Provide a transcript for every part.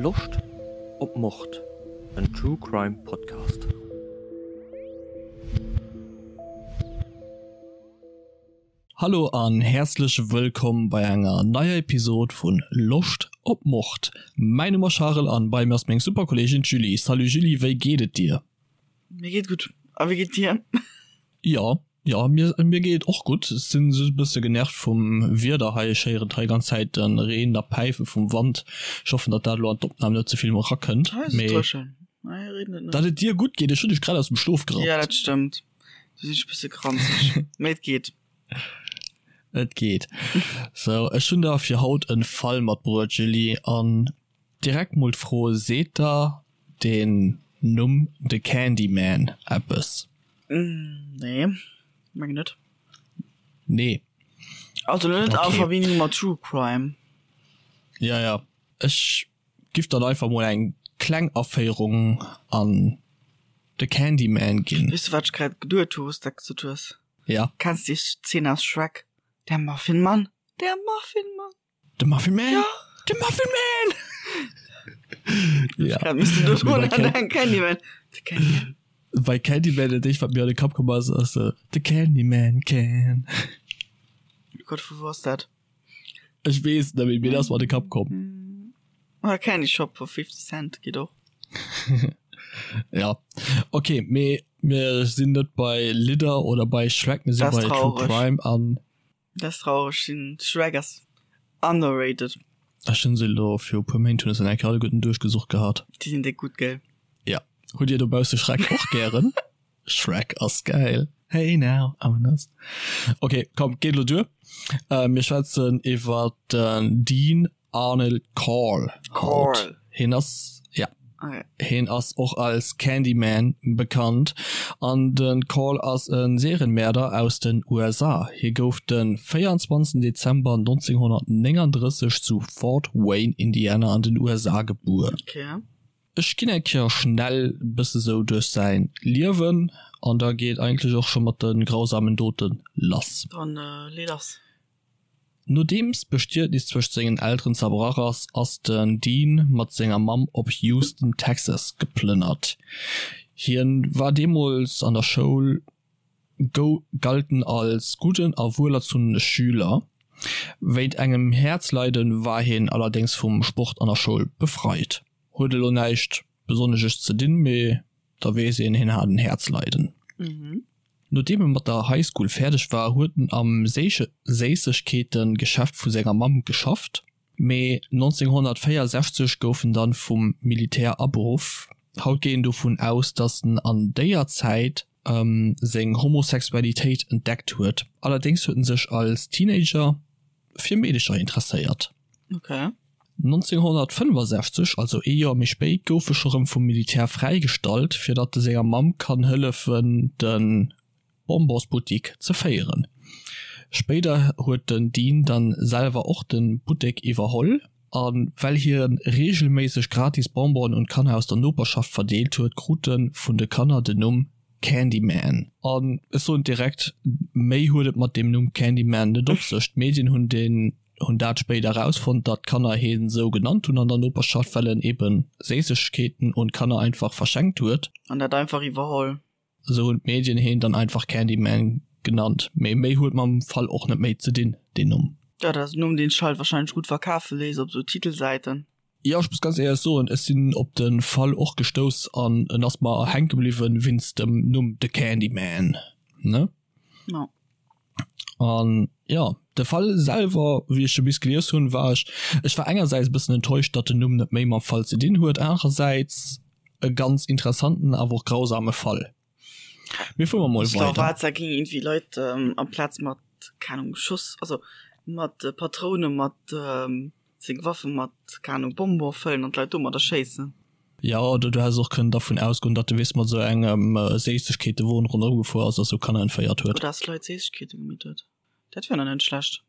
Loscht op Mord? En True Crime Podcast. Hallo an häerzlech wëllkomm bei enger neier Episod vun Loscht op Mord. Mäin Numm ass Charel an bei mir ass meng super Kolleegin d'Julie. Salut Julie, wéi geet et dir? Mir geet gutt, a wéi geet dir? Jo, jo, mir mir geet et och gutt. Ech sinn just e bësse genervt vum Wieder hei. Ech héieren hei ganz Zäit de Reen a Päife vum Wand. Ech hoffen, datt dat elo an d'Opnam net ze vill erakënnt. Hei ass et Mee dréchen. Hei reent et net. datt et dir gutt geet, ech hunn dech grad aus dem Schlof Ja, gerappt. dat stëmmt. Du sinn ech e bësse granzeg. Mee et geet. Et geet. Sou, ech hunn der fir haut e Fall matbruet, Julie, an direkt mol d'Fro, Seet der den Numm The Candyman eppes? Nee, mengen net. Nee. Also net a Okay. Verbindung mat True Crime. Ja, ja. Ech giff dann einfach mol eng kleng Aféierung an The Candyman ginn. Weess du wat ech grad geduet hu wous dat gesot hues? Ja. Kenns déi Szene aus Shrek? Der Muffinmann, der Muffinmann. De Muffin Man? Ja. De Muffin Man! Ja. Grad müssen du Mee bei dran denken, Candyman. The Candyman. Bei Candyman, dat éischt wat mir an de Kapp komm ass, ass äh, The Candyman can. Oh Gott, vu wou ass dat? Ech weess net méi, mee dat ass mer an de Kapp komm. Oder Candy Shop vu 50 Cent geet och. Ja, okay, mee mir sinn net bei Lidder oder bei Shrek, mir sinn Das bei True traurig. Crime an Dat ass traureg, sinn Shrek ass underrated. Ech hunn se elo viru puer Méint hunn ech se eng Kéier alleguerten duerchgesucht gehat. Déi sinn déck gutt, gell? Ja. Hutt dir dobausse Shrek och gären? Shrek ass gäil. Hey now, I'm an ass. Ok, komm, geet elo duer. Mir schwätzen iwwer den Dean Arnold Corll haut. Corll. Hien ass, ja. Okay. Hien ass och als Candyman bekannt an de Corll ass e Serienmäerder aus den USA. Hie gouf de 24 Dezember 1939 zu Fort Wayne, Indiana an den USA gebuer. Okay. Ech ginn eng Kéier schnell e bësse sou duerch säin Liewen an da geet eigentlech och scho mat de grausamen Dote lass. Dann lee lass. Nodeems d'Bestietnis zwëscht sengen Elteren zerbrach ass, ass den Dean mat senger Mamm op Houston, Texas geplënnert. Hien war deemools an der Schoul, galt en als gudden a wuelerzunne Schüler. Wéint engem Häerzleiden war hien allerdéngs vum Sport an der Schoul befreit. Huet elo näischt besonneges ze dinn, mee da weess een, hien hat en Häerzleiden. Nodeem e mat der High School fäerdeg war, huet en am Séissegkeete-Geschäft vu senger Mamm geschafft, mee 1964 gouf en dann vum Militär aberuff. Haut geet een dovun aus, datt en an déier Zäit seng Homosexualitéit entdeckt huet, allerdéngs huet en sech als Teenager fir Meedecher interesséiert. Okay. 1965, also ee Joer méi spéit, gouf e scho rëm vum Militär fräigestallt, fir datt e senger Mamm kann hëllefen de Bonbonsbuttik ze féieren. Spéider huet den Dean dann selwer och de Buttek iwwerholl, a well hie reegelméisseg gratis Bonbonen un d'Kanner aus der Noperschaft verdeelt huet, krut e vun de Kanner den Numm Candyman. An ech soen direkt, méi huet et mat deem Numm Candyman net op sech. D'Medien hunn deen hunn dat spéider erausfonnt, datt d'Kanner hien esou genannt hunn an der Noperschaft, well en eben Séissegkeeten un d'Kanner einfach verschenkt huet. An dat einfach iwwerholl. Esou hunn d'Medien hien dann einfach Candyman genannt. Mee méi huet mam Fall och net méi ze dinn, deen Numm. Jo, dat ass en Numm, deen sech halt wahrscheinlech gutt verkafe léisst op esou Titelsäiten. Jo, ech muss ganz éierlech soen, ech sinn op de Fall och gestouss an en ass mer hänke bliwwen wéinst dem Numm The Candyman, ne? Jo. An jo, de Fall selwer, wéi ech e bis gelies hunn, war ech, ech war engersäits e bëssen enttäuscht, datt den Numm net méi mam Fall ze dinn huet, anerersäits e ganz interessanten, awer och grausame Fall. Mir fuere mol weider. Da ging irgendwie Leit ähm, amplaz mat keine Ahnung, Schuss, also mat äh, Patroune mat ähm, seng Waffe mat keine Ahnung, Bonbon fëllen an d'Leit domadder schéissen. Ja, oder du häss och kënnen dervun ausgoen, datt de weess mat esou engem äh, Séissegkeetewon ronderëm gefuer ass a sou Kanner entféiert huet. Oder dass Leit Séissegkeete gemeet huet. Dat wär nach net schlecht.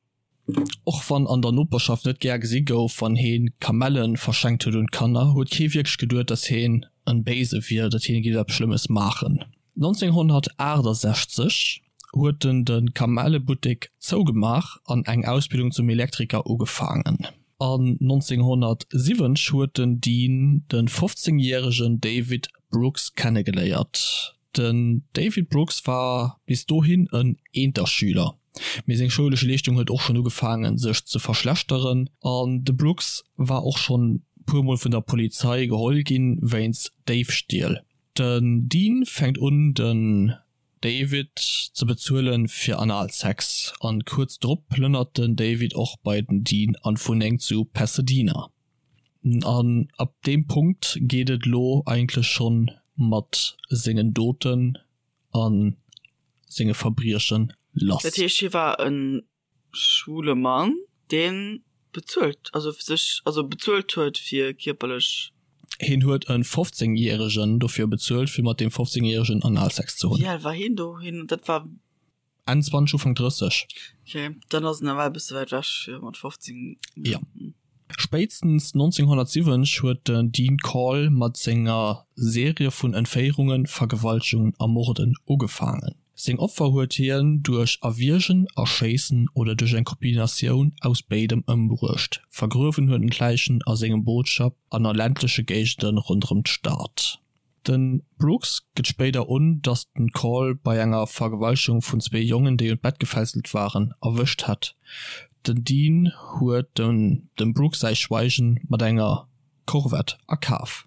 Och wann an der Noperschaft net gär gesi gouf, wann heen Kamellen verschenkt huet un d'Kanner, huet kee wierklech geduet, dass heen en Béise wier, datt heen géif eppes Schlëmmes maachen. 1968 huet en de Kamellebuttek zougemaach an eng Ausbildung zum Elektriker ugefaangen. An 1970 huet den Dean de 15 järegen David Brooks kennegeléiert. Den David Brooks war bis dohin en Eenterschüler, mee seng schoulesch Leeschtung huet och schonn ugefaangen sech ze verschlechteren an de Brooks war och schonn puer mol vun der Polizei geholl ginn wéinst Déifstiel. Den Dean fänkt un den David ze bezuelen fir Analsex an kuerz drop plënnert den David och bei den Dean an d'Wunneng zu Pasadena. An ab deem Punkt geet et lo eigentlech schonn mat sengen Doten a senge Verbriechen lass. Dat heescht hie war e schwule Mann deen bezuelt, also sech, also bezuelt huet fir kierperlech. Hien huet e 15 järegen dofir bezuelt fir mat deem 15 järegen Analsex ze hunn. Wéi al war hien do? Hien, dat war. Enn 20, Ufank 30. Ok, dann ass en nawell e bësse wäit ewech fir mat 15. Jo. Spéitstens 1970 huet den Dean Corll mat senger Serie vun Entféierungen, Vergewaltegungen a Morden ugefaangen. Seng Opfer huet hien duerch Erwiergen, Erschéissen oder duerch eng Kombinatioun aus béidem ëmbruecht. Vergruewen huet en d'Läichen a sengem Bootschapp an a ländleche Géigende ronderëm d'Stad. De Brooks gëtt spéider un, datt den Corll bei enger Vergewaltegung vun zwee Jongen, déi un d'Bett gefesselt waren, erwëscht hätt. Den Dean huet dem Brooks säi Schweigen mat enger Corvette a Kaf.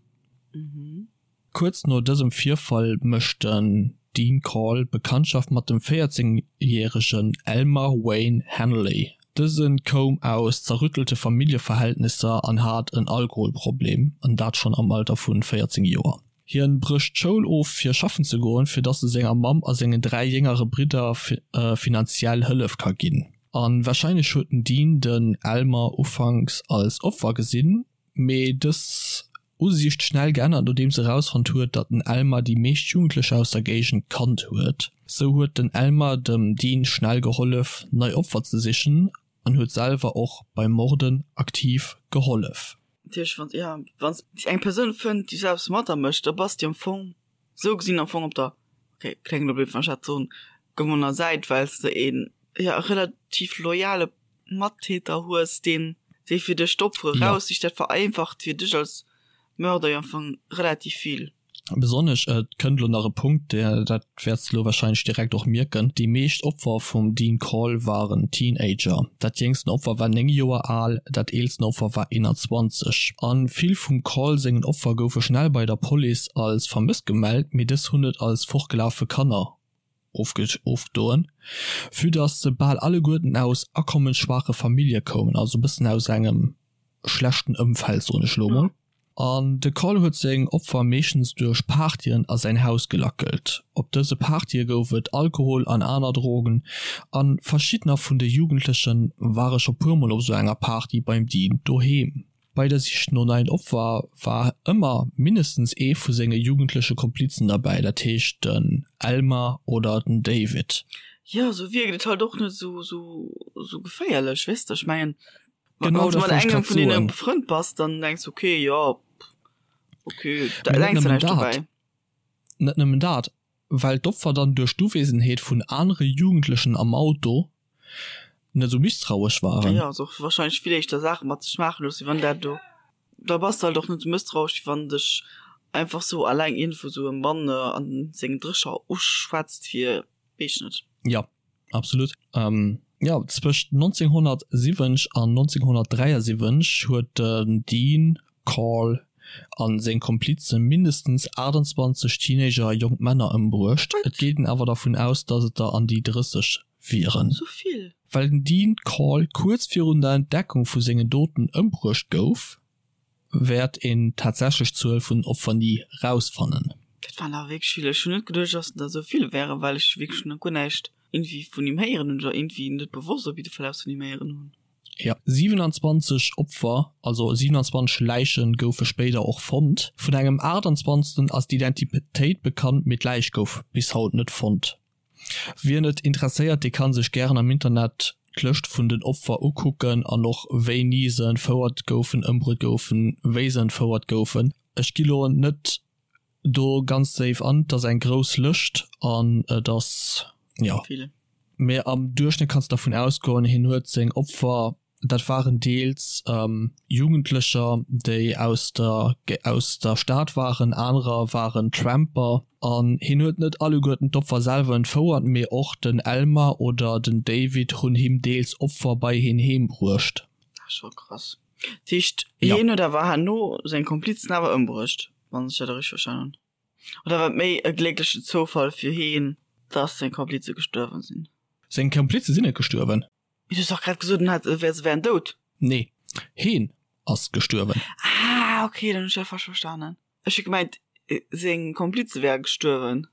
Kuerz no dësem Virfall mécht den Dean Corll Bekanntschaft mat dem 14 järegen Elmer Wayne Henley. Dëse koum aus zerrüttelte Familljeverhältnisser an hat en Alkoholproblem, an dat schonn am Alter vu 14 Joer. Hien brécht d'Schoul of fir schaffen ze goen, fir dass e senger Mamm a sengen 3 jéngere Bridder finanziell Hëllef ka ginn. A warscheinlech huet den Dean den Elmer ufanks als Opfer gesinn, mee dës Usiicht schnell geännert nodeems erausfonnt huet, datt den Elmer déi meescht Jugendlecher aus der Géigend kannt huet. Sou huet den Elmer dem Dean schnell gehollef nei Opfer ze sichen an huet selwer och beim Morden aktiv gehollef. Natierlech wann ja wann s eng Persoun fënnt déi selbst mat der mécht, da bass de am Fong sou gesinn am Fong op der, okay kléngt elo blöd wann ech dat soen, gewonnener Säit, well s de een ja relativ loyale Mattäter hues, deen dee fir dech d'Opfere raussicht. Dat vereinfacht fir dech als Mörder jo am Fong relativ vill. Besonnesch, et kënnt elo nach e Punkt, dat wäerts de elo warscheinlech direkt och mierken, déi meescht Opfer vum Dean Corll waren Teenager. Dat jéngsten Opfer war 9 Joer al, dat eelsten Opfer war 21. A vill vum Corll sengen Opfer goufe schnell bei der Police als vermësst gemellt, mee dës hunn et als fortgelafe Kanner ofgedoen, vue dass se bal alleguerten aus akommensschwaache Famillje koumen, also e bëssen aus engem schlechten Ëmfeld, soen ech elo mol. An de Carl huet seng Opfer meeschtens duerch Partyen a säin Haus gelackelt. Op dëse Partye gouf et Alkohol an aner Drogen, a verschiddener vun de Jugendleche ware scho puer mol op sou enger Party beim Dean doheem. Bei der Sich no neien Opfer war ëmmer mindestens ee vu senge jugendleche Komplizen derbäi, dat heescht den Elmer oder den David. Jo, sou wierkt et halt och net sou sou geféierlech, weess de? Ech mengen, Genau wann s dat mat wollt ech engem grad vun deene soen. befrënnt bass, dann denks de, okay, jo, okay, da Mee net denks de nëmmen näischt dat, dobäi. net nëmmen dat, well d'Opfer dann duerch d'Uwesenheet vun anere Jugendlechen am Auto net esou misstrauesch waren. Jo, also och wahrscheinlech vill éischter Saache mat sech maache loossen, wéi wann dat do, da bass de halt och net esou mësstrauesch, wéi wann dech einfach sou alleng iergendwou sou e Mann an sengen Drécher uschwätzt fir, weess ech net. Jo, absolut. Jo, zwëscht 1970 an 1973 huet den Dean Corll a seng Komplize mindestens 28 Teenager a jonk Männer ëmbruecht. Et geet een awer dervun aus, datt et der an déi 30 wieren. Sou vill? Well den Dean Corll kuerz virun der Entdeckung vu sengen Doten ëmbruecht gouf, wäert een d'tatsächlech Zuel vun Opfer ni rausfannen. Dat waren awer wierklech vill. Ech hunn net geduecht, dass der esou vill wären, well ech wierklech nach guer näischt iergendwéi vun him héieren hunn oder iergendwéi net bewosst op jidde Fall eppes vun him héieren hunn. Jo, 27 Opfer, also 27 Läiche goufe spéider och fonnt. Vun engem 28. ass d'Identitéit bekannt, mee d'Läich gouf bis haut net fonnt. Wien et interesséiert, dee kann sech gären am Internet d'Lëscht vun den Opfer ukucken an och wéini se entfouert goufen, ëmbruet goufen, wéi se entfouert goufen. Ech gi lo net do ganz déif an, et ass eng grouss Lëscht an et ass, jo. Vill. Mee am Duerchschnëtt kanns de dervun ausgoen, hien huet seng Opfer. Dat waren deels Jugendlecher, déi aus der aus der Stad waren, anerer waren Tramper. An hien huet net alleguerten d'Opfer selwer entfouert, mee och den Elmer oder den David hunn him deels Opfer bei hien heem bruecht. Dat ass scho krass. Dat heescht, hien huet awer herno seng Komplizen awer ëmbruecht, wann ech dat richteg verstanen hunn? Oder war et méi e glécklechen Zoufall fir hien, dass seng Komplize gestuerwen sinn? Seng Komplize sinn net gestuerwen. Mee du hues dach grad gesot, en hätt, se wären dout. Nee, heen ass gestuerwen. Ah, okay, dann hunn ech dat falsch verstanen. Ech hu gemengt, seng Komplize wäre gestuerwen.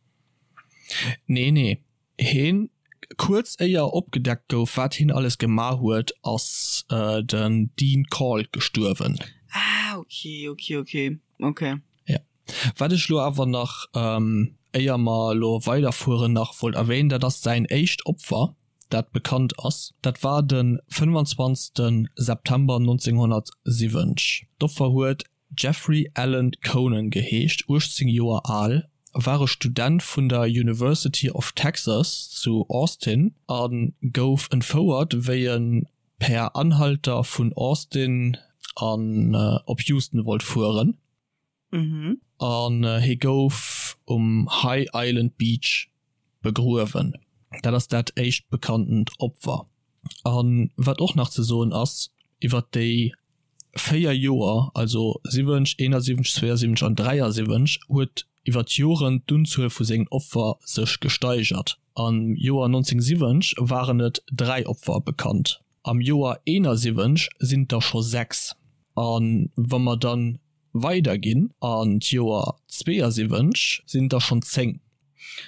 Nee, nee, heen, kuerz éier opgedeckt gouf, wat heen alles gemaach huet, ass den Dean Caul gestuerwen. Ah, okay, okay, okay, okay. Ja. Wat ech lo awer nach, éier mer lo weiderfueren, nach wollt erwähnen, dat ass säin éischt Opfer, dat bekannt ass. Dat war de 25 September 1970. D'Opfer huet Jeffrey Allen Conan geheescht, 18 Joer al, war e Student vun der University of Texas zu Austin a gouf entfouert, wéi e per Anhalter vun Austin an op Houston wollt fueren. An hie gouf um High Island Beach begruewen. Dat ass dat éischt bekanntent Opfer. A wat och nach ze soen ass, iwwer déi 4 Joer, also 70, 71, 72 an 73, huet iwwer d'Joren d'Unzuel vu sengen Opfer sech gesteigert. Am Joer 1970 waren et 3 Opfer bekannt, am Joer 71 sinn et der scho 6. A wa mer dann weider ginn an d'Joer 72 sinn et der schonn 10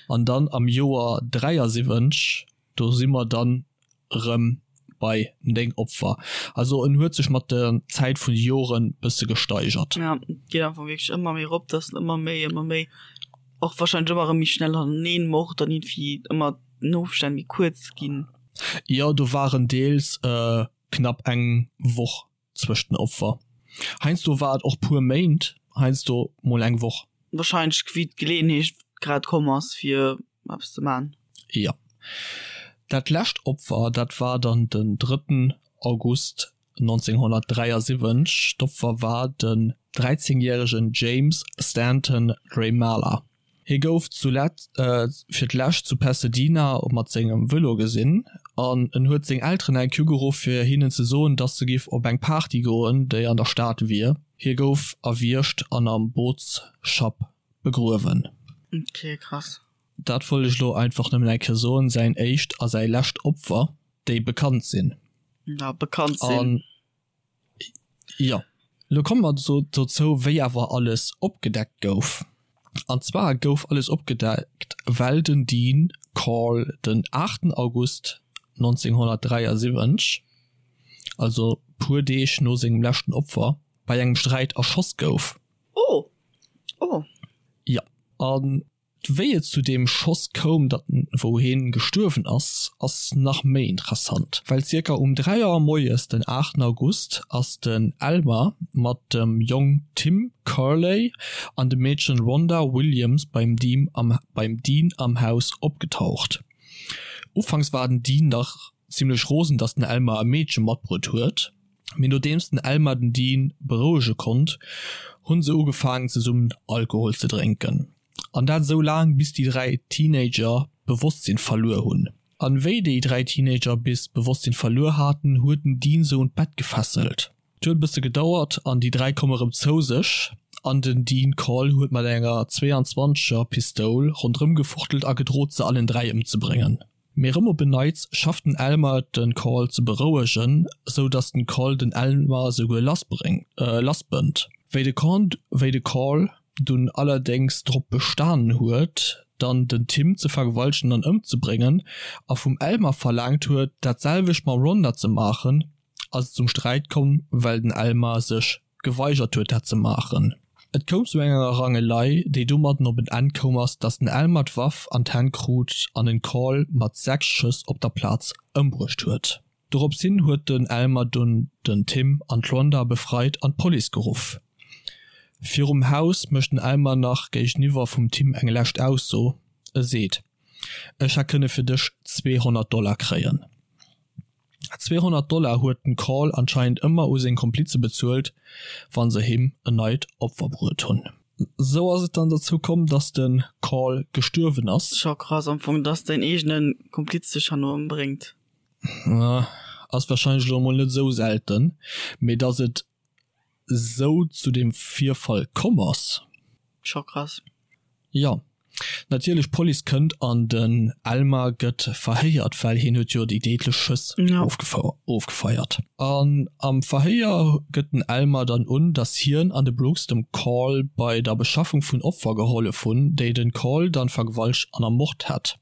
an dann am Joer 73, do si mer dann erëm bei 9 Opfer. Also en huet sech mat der Zäit vun de Joren bësse gesteigert. Ja, et geet einfach wierklech ëmmer méi erop, dass en ëmmer méi, ëmmer méi, och wahrscheinlech ëmmer erëm méi schnell haneneen mord an iergendwéi ëmmer den Ofstänn méi kuerz ginn. Jo, do waren deels knapp eng Woch zwëscht den Opfer. Heiansdo war et och puer Méint, heiansdo mol eng Woch. Wahrscheinlech wéi d'Geleeënheet grad komm ass fir eppes ze man. Jo. Dat lescht Opfer, dat war dann den drëtten August 1973. D'Opfer war den 13 järegen James Stanton Drymala. Hie gouf fir d'lescht zu Pasadena mat sengem Vëlo gesinn an en huet seng Elteren eng Kéier ugeruff fir hinnen ze soen, datt e giff op eng Party goen, déi an der Stad wier. Hie gouf erwiergt an am Bootsschapp begruewen. Ok, krass. Dat wollt ech elo einfach nëmmen eng Kéier soen, säin éischt a säi lescht Opfer, déi bekannt sinn. Ja, bekannt sinn. Jo, lo komme mer dozou, wéi awer alles opgedeckt gouf. An zwar gouf alles opgedeckt, well den Dean Corll den 8 August 1973, also puer Deeg no sengem leschten Opfer, bei engem Sträit erschoss gouf. Oh! Oh! Jo, an Wéi et zu deem Schoss koum, datt wou heen gestuerwen ass, ass nach méi interessant, well zirka um 3 Auer moies den 8 August ass den Elmer mat dem Jong Tim Kerley an dem Meedchen Rhonda Williams beim Dean am beim Dean am Haus opgetaucht. Ufanks war den Dean nach zimlech rosen, datt den Elmer e Meedche matbruet huet, mee nodeems den Elmer den Dean berouege konnt, hunn se ugefaangen zesummen Alkohol ze drénken. An dat esou laang, bis déi 3 Teenager d'Bewosstsinn verluer hunn. An wéi déi 3 Teenager bis d'Bewosstsinn verluer haten, huet den Dean se un d'Bett gefesselt. Et huet e bësse gedauert an déi 3 komme rëm zou sech an den Dean Corll huet mat enger 22 er Pistoul ronderëm gefuchtelt a gedrot se allen 3 ëmzebréngen. Mee rëm op en Neits schafft den Elmer et den Carl ze berouegen, sou dass den Carl den Elmer souguer lassbënnt. Wéi de wéi de Carl dunn allerdéngs drop bestanen huet dann den Tim ze vergewaltegen an ëmzebréngen a vum Elmer verlaangt huet dat selwecht mam Rhonda ze maachen, ass et zum Sträit komm, well den Elmar sech geweigert huet dat ze maachen. Et koum zu enger Rangelei, déi domadden op en Enn koum ass, datt den Elmar d'Waff an d'Hänn krut an den Carl mat 6 Schëss op der Plaz ëmbruecht huet. Dorops hin huet den Elmar dunn den Tim an d'Rhonda befreit an d'Police geruff. Virum Haus mécht den Elmar nach géigeniwwer vum Tim eng lescht Ausso, e seet, Ech hätt kënne fir dech 200 Dollar kréien. 200 Dollar huet den Call anscheinend ëmmer u seng Komplize bezuelt, wann se him en neit Opfer bruet hunn. Sou ass et dann dozou komm, dass de Call gestuerwen ass. Scho krass am Fong, dass däin eegene Kompliz dech herno ëmbréngt. Ass wahrscheinlech elo emol net esou selten, mee dass et esou zu deem Virfall komm ass. Scho krass. Jo, natierlech, d'Police kënnt an den Elmar gëtt verhéiert, well hien huet jo déi déidlech Schëss ofgefeiert. An am Verhéier gëtt den Elmar dann un, dass hien an de Brooks dem Call bei der Beschaffung vun Opfer gehollef hunn, déi den Call dann vergewaltegt an ermort hätt.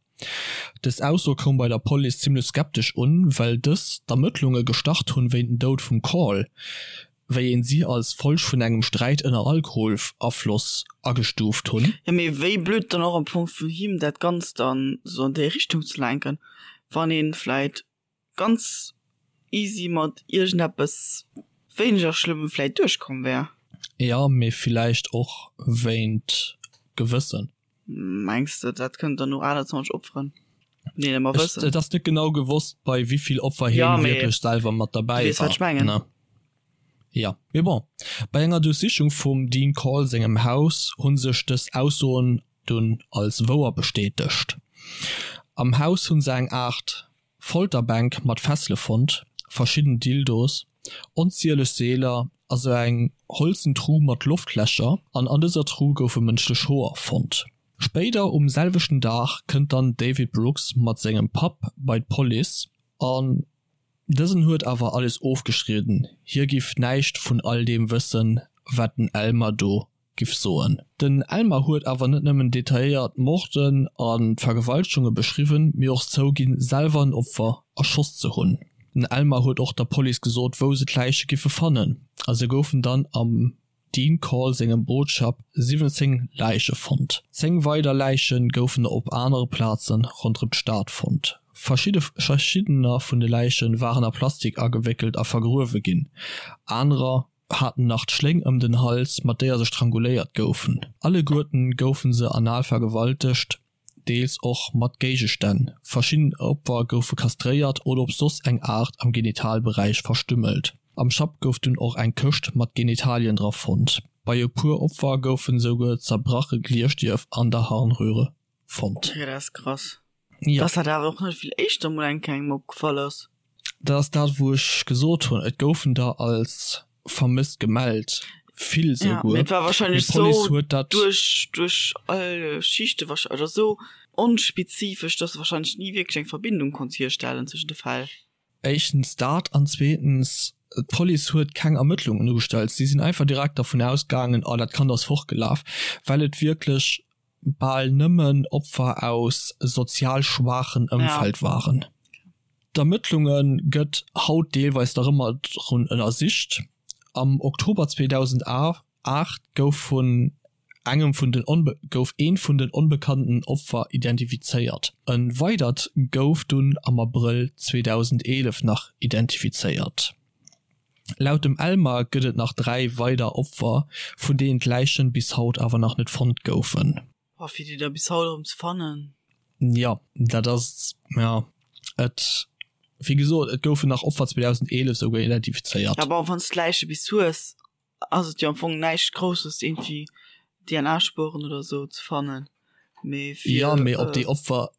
Dës Ausso koum bei der Police zimmlech skeptesch un, well dës d'Ermëttlunge gestart hunn wéint den Doud vum Call, wéi een si als Folg vun engem Sträit ënner Alkoholafloss agestuuft hunn. Jo, mee wéi blöd dann och am Fong vun him dat Ganzt dann sou an déi Richtung ze lenken, wann een vläit ganz easy mat iergendeppes wéineger schlëmmem vläit duerchkomm wär. Jo, mee villäicht och wéint Gewëssen. Mengs de dat kënnt dann no 28 Opferen nee ëmmer wëssen? Et ass net genau gewosst bei wéivill Opfer hien ja, wierklech selwer mat derbäi war. Wat ech mengen. Ne? Ja, mee bon, bei enger Duerchsichung vum Dean Call sengem Haus hu sech dës Aussoen dunn als wouer bestätegt. Am Haus hu se eng Aart Folterbänk mat Fessele fonnt, verschidden Dildos, onzieleg Seeler a sou eng holzen Tru mat Loftlächer an an dëser Tru goufe mënschlech Hoer fonnt. Spéider um selwechten Dag kënnt dann David Brooks mat sengem Papp bei d'Police an dësen huet awer alles ofgestridden, hie giff näischt vun all deem wëssen, wat den Elmer do giff soen. Den Elmer huet awer net nëmmen detailléiert d'Morden an d'Vergewaltegunge beschriwwen, mee och zouginn, selwer en Opfer erschoss ze hunn. Den Elmer huet och der Police gesot, wou se d'Läiche giffe fannen, a se goufen dann am Dean Call sengem Bootschapp 17 Läiche fonnt. 10 weider Läiche goufen op anere Plaze ronderëm d'Stad fonnt. Verschiddener vun de Läiche waren a Plastik agewéckelt a vergruewe ginn, anerer haten nach d'Schléng ëm den Hals, mat déier se stranguléiert goufen. Alleguerten goufen se anal vergewaltegt, deels och mat Géigestänn. Verschidden Opfer goufe kastréiert oder op soss eng Aart am Genitalberäich verstümmelt. Am Schapp gouf dunn och eng Këscht mat Genitalien dra fonnt. Bei e puer Opfer goufen esouguer zerbrache Glierstierf an der Harnröhre fonnt. Okay, dat ass krass. Ja. Dass dat awer och net vill éischter mol eng Kéier engem opgefall ass. Dat ass dat wou ech gesot hunn, et goufen der als vermësst gemellt, vill souguer. Ja, mee et war wahrscheinlech sou duerch duerch all Schichte wahrscheinlech, oder sou onspezifesch, dass de wahrscheinlech ni wierklech eng Verbindung konns hierstellen zwëschen de Fäll. Éischtens dat an zweetens, d'Police huet keng Ermëttlungen ugestallt. Si sinn einfach direkt dervun ausgaangen, oh dat Kand ass fortgelaf, well et wierklech bal nëmmen Opfer aus sozial schwaachen Ëmfeld waren. D'Ermëttlunge gëtt haut deelweis nach ëmmer drun ënnersicht. Am Oktober 2008 gouf vun engem vun den gouf eent vun den onbekannten Opfer identifizéiert. E weidert gouf dunn am Abrëll 2011 nach identifizéiert. Laut dem Elmar gëtt et nach 3 weider Opfer, vun deenen d'Läichen bis haut awer nach net fonnt goufen. Oh, fir déi da bis haut erëm ze fannen. Jo, dat ass, jo, et, wéi gesot, et goufen nach Opfer 2011 souguer identifizéiert. Ja, bon, wann s d'Läiche bis hues, ass et jo am Fong näischt Grousses, iergendwéi DNA-Spueren oder sou ze fannen, mee fir. Jo, mee ob déi Opfer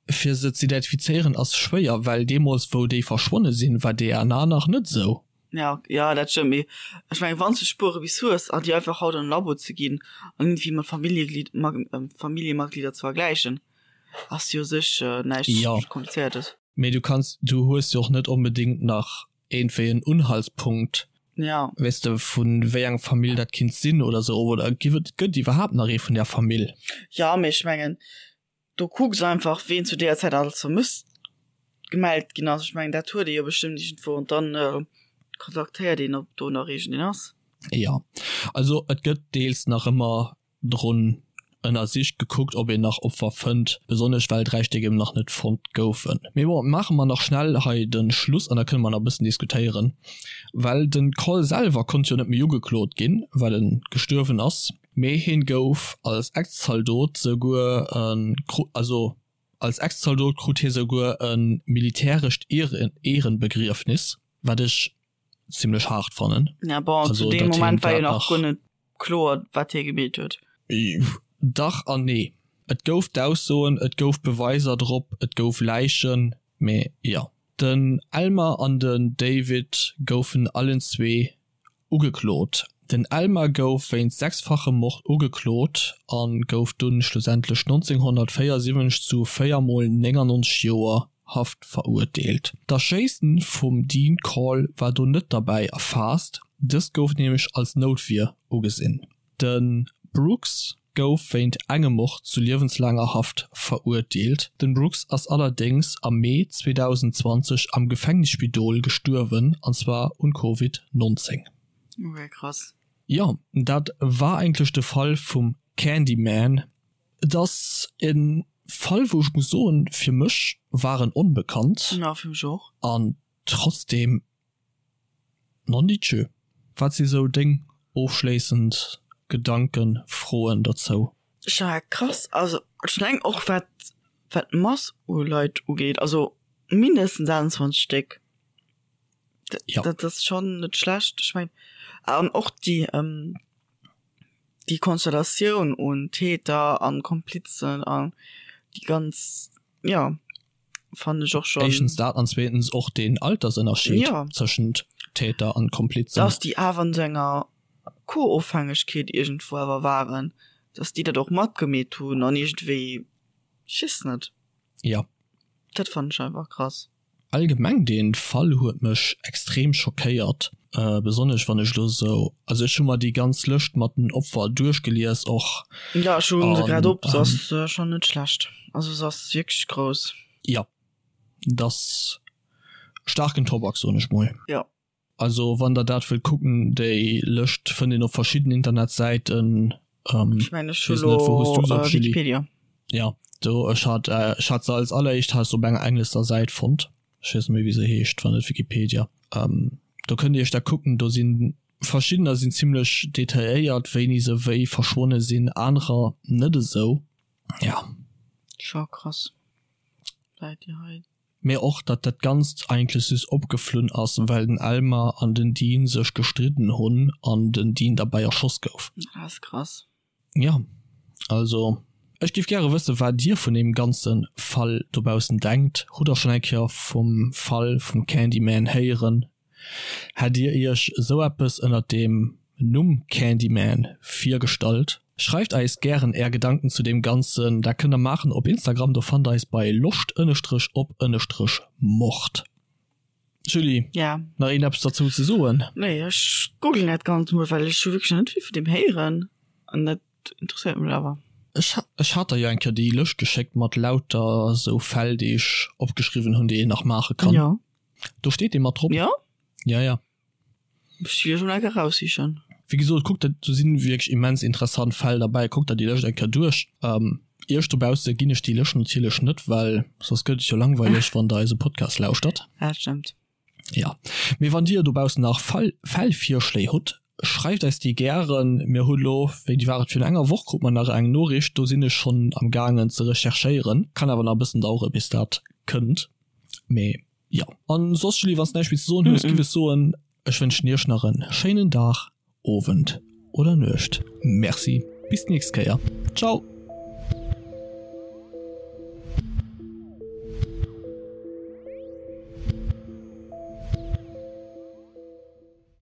Fir se z'identifizéieren ass schwéier, well deemools wou déi verschwonne sinn, war DNA nach net esou. Ja, ja, dat stëmmt, mee ech mengen, wann s de Spuere bis hues an déi einfach haut an e Labo ze ginn an iergendwéi mat Familljeglied, Familljematglieder ze vergläichen, ass jo u sech näischt Jo. Komplizéiertes. Mee du kanns, du hues jo och net onbedéngt nach iergendwéi en Unhaltspunkt, Ja. weess de, vu wéi eng Famill dat kinnt sinn oder sou, oder giff et, gëtt iwwerhaapt nach ee vun där Famill? Jo, mee ech mengen, Do kucks einfach ween zu deeër Zäit alles vermësst gemellt ginn ass. Ech mengen dat huet ee jo bestëmmt iergendwou an dann kontaktéiert een ob do nach iergendeen ass. Jo, also et gëtt deels nach ëmmer drun ënnersicht, gekuckt ob een nach Opfer fënnt, besonnesch well 3 Stéck eben nach net fonnt goufen. Mee bon, maache mer nach schnell hei de Schluss an da kënne mer nach e bëssen diskutéieren, well de Cole selwer konnt jo net méi ugeklot ginn, well e gestuerwen ass. Mee hien gouf als Ex-Zaldot souguer also. Als Ex-Zaldot krut hie souguer e militärescht Ehrenbegriefnis, wat ech zimmlech haart fannen. Ja bon, also, zu deem Moment war jo nach guer net kloer, wat hie gemeet huet. Dach an nee. Et gouf d'Aussoen, et gouf Beweiser drop, et gouf Läichen, mee jo. Den Elmer an den David goufen allenzwee Ugeklot. Den Elmer gouf wéinst sechsfachem Mord ugeklot a gouf dunn schlussendlech 1974 zu 4 mol 99 Joer Haft verurteelt. D'Erschéissen vum Dean Corll war do net derbäi erfaasst, dëst gouf nämlech als Noutwier ugesinn. De Brooks gouf wéint engem Mord zu liewenslaanger Haft verurteelt. Den Brooks ass allerdéngs am Mee 2020 am Gefängnisspidol gestuerwen, an zwar un Covid 19. Ok, krass. Jo, dat war eigentlech de Fall vum Candyman. Et ass e Fall, wou ech muss soen, fir mech war en onbekannt. Jo, fir mech och. An trotzdem Nondidjö, wat si sou deng ofschléissend Gedanken, Froen dozou? Ja krass, also ech mengen och wat wat d'Mass u Leit ugeet, also mindestens 28 Stéck, Ja. dat ass schonn net schlecht. Ech mengen an och déi déi Konstellatioun un Täter an Komplizen an déi ganz, jo. Fannen ech och schon. Éischtens dat an zweetens och deen Altersënnerscheed ja. tëschent Täter an Komplizen. Dass déi awer an sou enger Co-Ofhängegkeet iergendwou awer waren, dass déi dat och matgemeet hunn an iergendwéi, ech weess net. Ja. Dat fannen ech einfach krass. Allgemeng deen Fall huet mech extrem schockéiert, besonnesch wann ech lo sou, also ech hu mer déi ganz Lëscht mat den Opfer duerchgelies och. Jo ech hunn se grad op, se ass schonn net schlecht, also se ass wierklech grouss. Jo, et ass staarken Tobak soen ech mol. Jo. Also wann der dat wëllt kucken, déi Lëscht fënnt een op verschidden Internetsäiten. Ech mengen ech hu lo Wikipedia. Ja do ech hat ech hat se als alleréischt hat ech se op enger englescher Säit fonnt. Ech weess net méi wéi se heescht, wann net Wikipedia. Do kënnt dir iech dat kucken, do sinn verschiddener sinn zimlech detailléiert wéini se wéi verschwonne sinn, anerer net esou. Ja. Scho krass Läit déi hei. Mee och datt dat Ganzt eigentlech just opgeflunn ass, well den Elmer an den Dean sech gestridden hunn an den Dean derbäi erschoss gouf. Dat ass krass. Jo, also ech géif gäre wëssen, wat dir vun deem ganze Fall dobaussen denkt. Hutt der schonn eng Kéier vum Fall vum Candyman héieren? Hätt dir iech esou eppes ënnert dem Numm Candyman virgestallt? Schreift eis gären är Gedanken zu deem Ganzen. Dat kënnt der maachen op Instagram, do fannt der eis bei loscht ënnestrech op ënnestrech mord. Julie, Ja. nach een eppes derzou ze soen? Nee, ech googlen dat Ganzt mol, well ech hu wierklech nach net vill vun deem héieren an dat interesséiert mech awer. Ech ech hat der jo eng Kéier déi Lëscht geschéckt mat lauter esou Fäll, déi ech opgeschriwwen hunn, déi een nach maache kann. Jo. Do steet dee mat drop. Jo? Ja, ja. Muss ech jo eng Kéier raussichen. Wéi gesot, kuckt der, do sinn wierklech immens interessant Fäll derbäi, kuckt der déi Lëscht eng Kéier duerch. Iech dobausse ginn ech déi Lëscht natierlech net, well soss gëtt et jo langweileg, wann der eise Podcast lauschtert. Dat stëmmt. Jo, mee wann dir dobaussen nach Fall, Fällvirschléi hutt, schreift eis déi gären. Mir hu lo, wéini war et, virun enger Woch krut mer nach eng Noriicht, do sinn ech schonn am gaangen ze recherchéieren. Kann awer nach e bëssen dauere bis dat kënnt, mee jo. An soss Julie, wann s näischt méi ze soen hues, giff ech soen, ech wënschen iech nach en schéinen Dag, Owend oder Nuecht. Merci, bis d'nächst Kéier. Ciao.